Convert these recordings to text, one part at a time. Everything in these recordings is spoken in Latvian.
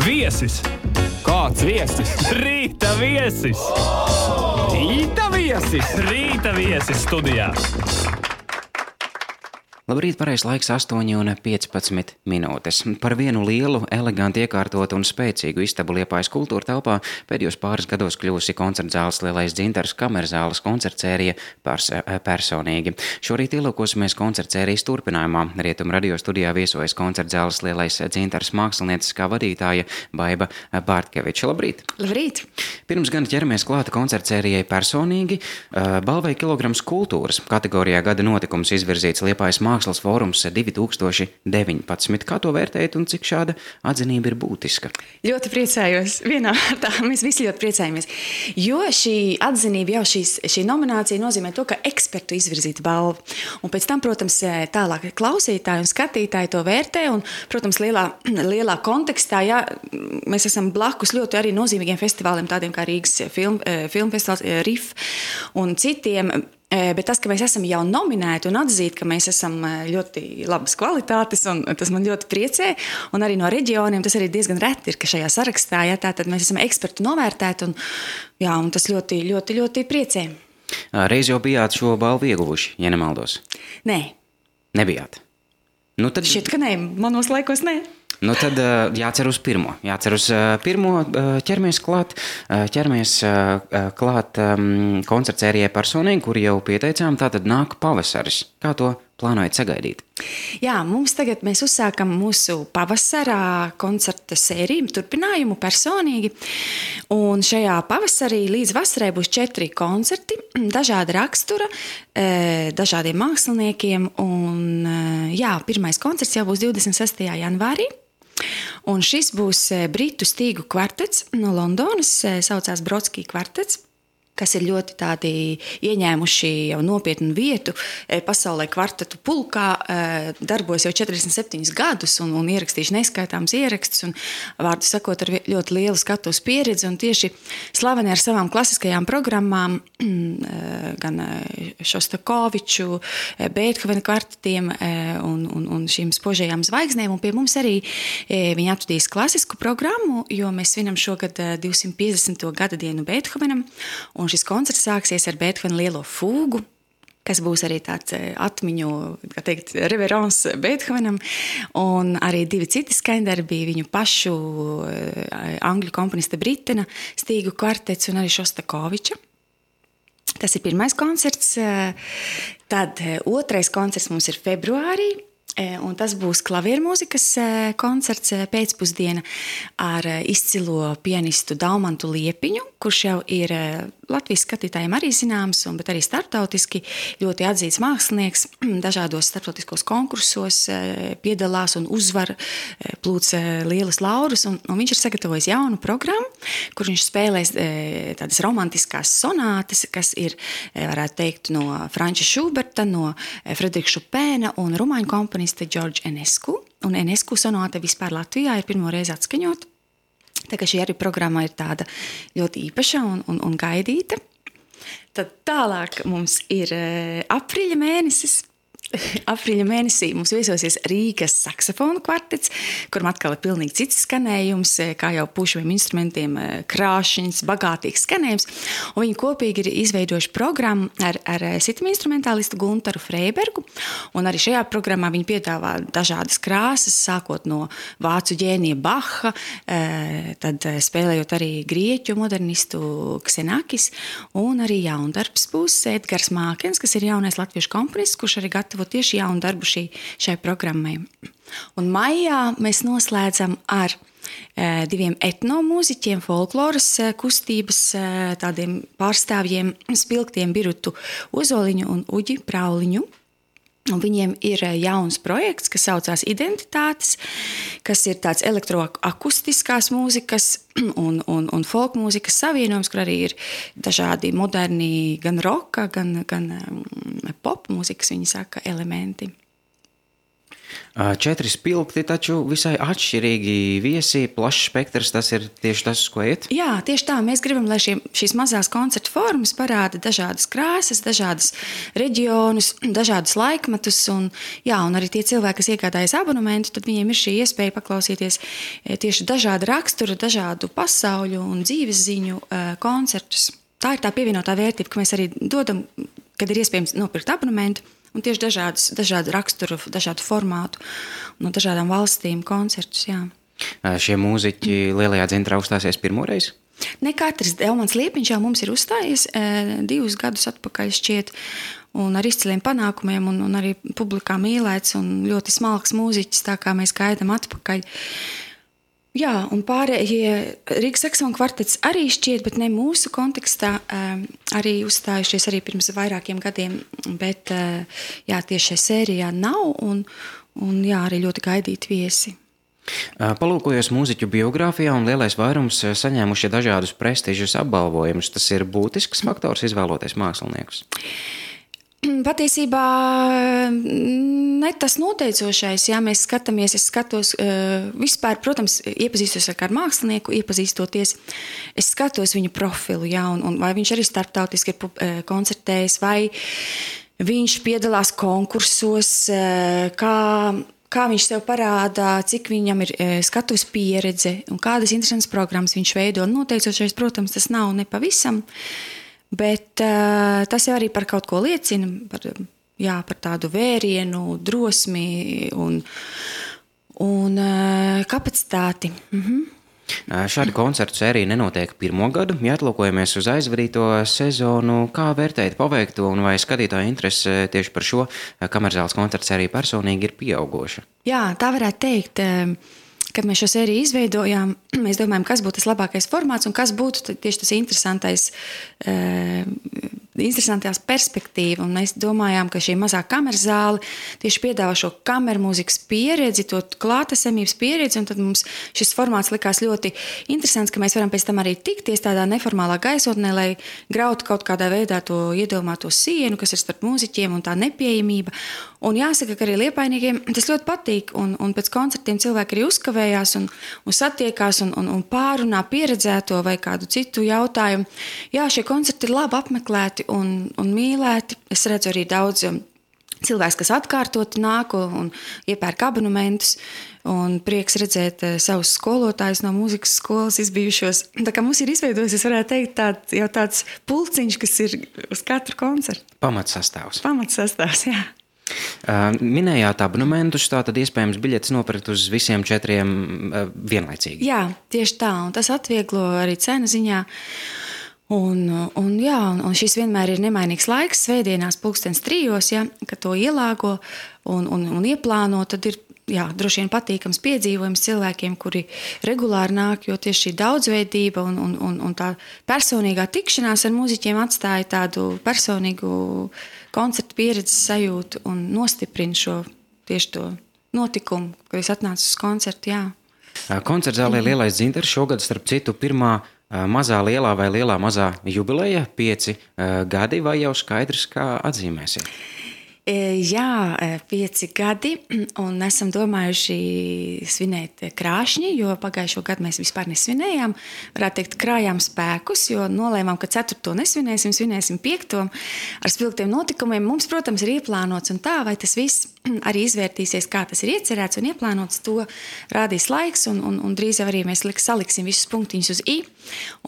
Viesis! Kāds viesis? Rīta viesis! Rīta viesis! Rīta viesis studijā! Labrīt, pareizs laiks 8:15 minūtes. Par vienu lielu, eleganti iekārtotu un spēcīgu istabu Liepājas kultūra telpā pēdējos pāris gados kļuvusi koncertzāles Lielais Dzintars kamerzāles koncertsērija personīgi. Šorīt ielūkosimies koncertsērijas turpinājumā. Rietumu radio studijā viesojas koncertzāles Lielais Dzintars mākslinieckā vadītāja Baiba Bārtkeviča. Labrīt! Labrīt! Pirms gan ķeramies klāta koncertsērijai personīgi, balvai Kilograms kultūras kategorijā gada notikums izvirzīts Liepājas Mākslas fórums 2019. Kā to vērtējat un cik šāda atzinība ir būtiska? Ļoti priecājos. Vienā vārdā mēs visi ļoti priecājamies. Jo šī atzinība, jau šī nominācija nozīmē to, ka ekspertu izvirzīta balva. Un pēc tam, protams, tālāk klausītāji un skatītāji to vērtē. Un, protams, lielā kontekstā, ja mēs esam blakus ļoti arī nozīmīgiem festivāliem, tādiem kā Rīgas filmu festivāls, RIF un citiem. Bet tas, ka mēs esam jau nominēti un atzīt, ka mēs esam ļoti labas kvalitātes, un tas man ļoti priecē, un arī no reģioniem tas arī diezgan reti ir, ka šajā sarakstā, ja, tātad mēs esam ekspertu novērtēti, un tas ļoti, ļoti, ļoti priecē. Reiz jau bijāt šo balvu ieguvuši, ja nemaldos? Nē. Nebijāt? Nu, tad... Šķiet, ka nē, manos laikos nē. Nu tad jācer uz pirmo. Ķeramies klāt koncertsērijai personīgi, kur jau pieteicām, tātad nāk pavasaris. Kā to plānojat sagaidīt? Jā, mēs uzsākam mūsu pavasarā koncerta sēriju, turpinājumu personīgi. Un šajā pavasarī līdz vasarai būs 4 koncerti, dažāda rakstura, dažādiem māksliniekiem. Un, pirmais koncerts jau būs 26. janvārī. Un šis būs britu stīgu kvartets no Londonas, saucās Brodskī kvartets, kas ir ļoti tādi ieņēmuši jau nopietnu vietu pasaulē kvartetu pulkā, darbojas jau 47 gadus un ierakstījuši neskaitāms ierakstus un, vārdu sakot, ar ļoti lielu skatuves pieredzi un tieši slaveni ar savām klasiskajām programmām, gan Šostakoviču, Beethovena kvartetiem un šīm spožajām zvaigznēm, un pie mums arī viņi atvedīs klasisku programmu, jo mēs svinam šogad 250. gada dienu Beethovenam, un šis koncerts sāksies ar Beethovena lielo fūgu, kas būs arī tāds atmiņu, kā teikt, reverens Beethovenam, un arī 2 citi skaņdarbi, viņu pašu angļu komponista Britena stīgu kvartets un arī Šostakoviča. Tas ir pirmais koncerts. Tad otrais koncerts mums ir februārī, un tas būs klaviermūzikas koncerts pēcpusdiena ar izcilo pianistu Daumantu Liepiņu, kurš jau ir Latvijas skatītājiem arī zināms, bet arī starptautiski ļoti atzīts mākslinieks, dažādos starptautiskos konkursos piedalās un uzvar, plūc lielas laurus, un viņš ir sagatavojis jaunu programmu, kur viņš spēlēs tādas romantiskās sonātes, kas ir, varētu teikt, no Franča Šuberta, no Frederika Šupēna un rumāņu komponista George Enescu. Un Enescu sonāte vispār Latvijā ir pirmo reizi atskaņot. Tā kā šī arī programma ir tāda ļoti īpaša un gaidīta. Tad tālāk mums ir aprīļa mēnesis. Aprīļa mēnesī mums viesosies Rīgas saksofonu kvartets, kuram atkal ir pilnīgi cits skanējums, kā jau pušaviem instrumentiem, krāšņs, bagātīgs skanējums. Un viņi kopīgi ir izveidojuši programmu ar citam instrumentālistu Guntaru Freibergu. Un arī šajā programmā viņi piedāvā dažādas krāsas, sākot no vācu ģēnija Baha, tad spēlējot arī grieķu modernistu Ksenakis, un arī jaundarbs būs Edgars Mākens, kas ir jaunais latviešu komponists, kurš arī gatavo tieši jaunu darbu šai programmai. Un maijā mēs noslēdzam ar 2 etnomūziķiem, folkloras kustības tādiem pārstāvjiem, Spilgtiem Birutu Ozoliņu un Uģi Prauliņu. Un viņiem ir jauns projekts, kas saucās Identitātes, kas ir tāds elektroakustiskās mūzikas un folk mūzikas savienojums, kur arī ir dažādi moderni gan roka, gan pop mūzikas, viņi saka, elementi. 4 spilgti, taču visai atšķirīgi viesi, plašs spektrs, tas ir tieši tas, uz ko iet? Jā, tieši tā. Mēs gribam, lai šīs mazās koncertu formas parāda dažādas krāsas, dažādas reģionus, dažādus laikmetus. Un arī tie cilvēki, kas iegādājas abonementu, tad viņiem ir šī iespēja paklausīties tieši dažādu raksturu, dažādu pasauļu un dzīves ziņu koncertus. Tā ir tā pievienotā vērtība, ka mēs arī dodam, kad ir iespējams nopirkt abonementu, un tieši dažādu raksturu, dažādu formātu no dažādām valstīm koncertus, jā. Šie mūziķi Lielajā Dzintrā uzstāsies pirmoreiz? Ne katrs. Elmans Liepiņš jau mums ir uzstājies 2 gadus atpakaļ šķiet, un ar izciliem panākumiem, un arī publikā mīlēts, un ļoti smalks mūziķis, tā kā mēs gaidām atpakaļ. Jā, un pārējie Rīgas saksofonu kvartets arī šķiet, bet ne mūsu kontekstā, arī uzstājušies arī pirms vairākiem gadiem, bet tieši šajā sērijā nav, un arī ļoti gaidīti viesi. Palūkojos mūziķu biogrāfijā, un lielais vairums saņēmuši dažādus prestižus apbalvojumus. Tas ir būtisks faktors izvēloties māksliniekus? Patiesībā ne tas noteicošais, ja mēs skatāmies, es skatos vispār, protams, iepazīstos ar kādu mākslinieku, iepazīstoties, es skatos viņu profilu, un vai viņš arī starptautiski ir koncertējis, vai viņš piedalās konkursos, kā viņš sev parādā, cik viņam ir skatuves pieredze un kādas interesantas programmas viņš veido. Noteicošais, protams, tas nav nepavisam, bet tas jau arī par kaut ko liecina, par tādu vērienu, drosmi un kapacitāti. Šāda koncertu sērija nenotiek pirmo gadu. Ja atlūkojamies uz aizvadīto sezonu, kā vērtēt paveikto un vai skatītāju interese tieši par šo kamerzāles koncertu sēriju personīgi ir pieaugoša? Jā, tā varētu teikt. Kad mēs šo sēriju izveidojām, mēs domājam, kas būtu tas labākais formāts un kas būtu tieši tas interesantās perspektīva. Un mēs domājām, ka šī mazā kameras zāle tieši piedāvā šo kameru mūzikas pieredzi, to klātesamības pieredzi, un tad mums šis formāts likās ļoti interesants, ka mēs varam pēc tam arī tikties tādā neformālā gaisotnē, lai grautu kaut kādā veidā to iedomāto sienu, kas ir starp mūziķiem un tā nepieejamība. Un jāsaka, ka arī liepainiekiem tas ļoti patīk, un pēc koncertiem cilvēki arī uzkavējās un satiekās un pārunā pieredzēto vai kādu citu jautājumu. Jā, šie koncerti ir labi apmeklēti un mīlēti. Es redzu arī daudz cilvēks, kas atkārtoti nāk un iepērk abonementus, un prieks redzēt savus skolotājus no mūzikas skolas izbijušos. Tā kā mums ir izveidojies, es varētu teikt, tāds pulciņš, kas ir uz katru koncertu. Pamatsastāvs, jā. Minējāt abonementus, tātad iespējams biļetes nopirkt uz visiem 4 vienlaicīgi. Jā, tieši tā, un tas atvieglo arī cenu ziņā. Un šis vienmēr ir nemainīgs laiks, svētdienās 3:00, kad to ielāgo un ieplāno, tad ir droši vien patīkams piedzīvojums cilvēkiem, kuri regulāri nāk, jo tieši šī daudzveidība un tā personīgā tikšanās ar mūziķiem atstāja tādu personīgu koncertu pieredzes sajūtu un nostiprina tieši to notikumu, kad es atnācu uz koncertu, jā. Koncertzālē Lielais Dzintars šogad, starp citu, pirmā mazā lielā vai lielā mazā jubileja, 5 gadi, vai jau skaidrs, kā atzīmēsiet? Jā, 5 gadi, un esam domājuši svinēt krāšņi, jo pagājušo gadu mēs vispār nesvinējām. Varētu teikt, krājām spēkus, jo nolēmām, ka 4. nesvinēsim, svinēsim 5. ar spilgtiem notikumiem. Mums, protams, ir ieplānots un tā, vai tas viss arī izvērtīsies, kā tas ir iecerēts un ieplānots, to rādīs laiks, un drīz arī mēs saliksim visus punktiņus uz I,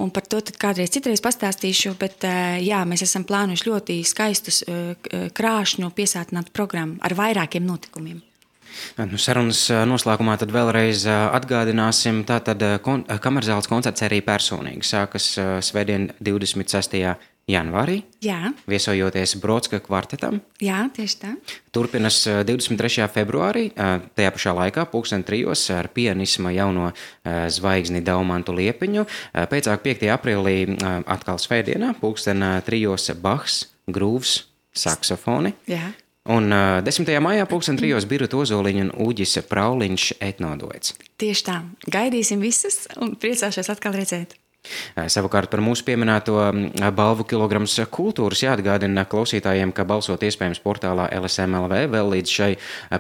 un par to tad citreiz pastāstīšu, bet jā, mēs esam plānojuši ļoti skaistus krāšņu piesātinātu programmu ar vairākiem notikumiem. Sarunas noslēgumā tad vēlreiz atgādināsim, tātad kamerzāles koncerts arī personīgi sākas svētdien 26. janvārī, jā. Viesojoties Brodska kvartetam. Jā, tieši tā. Turpinas 23. februārī, tajā pašā laikā, 3:00 ar pianisma jauno zvaigzni Daumantu Liepiņu. Pēcāk 5. aprīlī atkal svētdienā, 3:00 Bachs, grūvs, saksofoni. Jā. Un 10. maijā 3:00 Birta Ozoliņa un Uģis Prauliņš etnoduets. Tieši tā. Gaidīsim visus un priecāšos atkal redzēt. Savukārt par mūsu pieminēto balvu kilograms kultūras jāatgādina klausītājiem, ka balsot iespējams portālā LSM.LV vēl līdz šai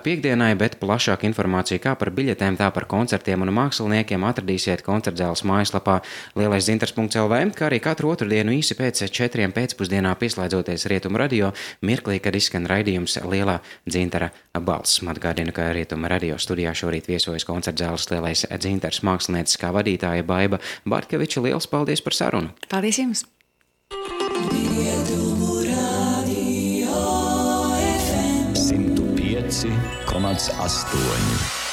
piekdienai, bet plašāku informāciju kā par biļetēm, tā par koncertiem un māksliniekiem atradīsiet koncertzāles mājaslapā lielaisdzintars.lv, kā arī katru otrdienu īsi pēc 4 pēcpusdienā pieslēdzoties Rietumu radio mirklī, kad izskan raidījums Lielā dzintara balss. Atgādinu, ka Rietumu radio studijā šorīt viesojas koncertzāles Lielais dzintars mākslinieckā vadītāja Baiba Bartkeviča. Liels paldies par sarunu! Paldies jums! Rietumu radio FM 105,8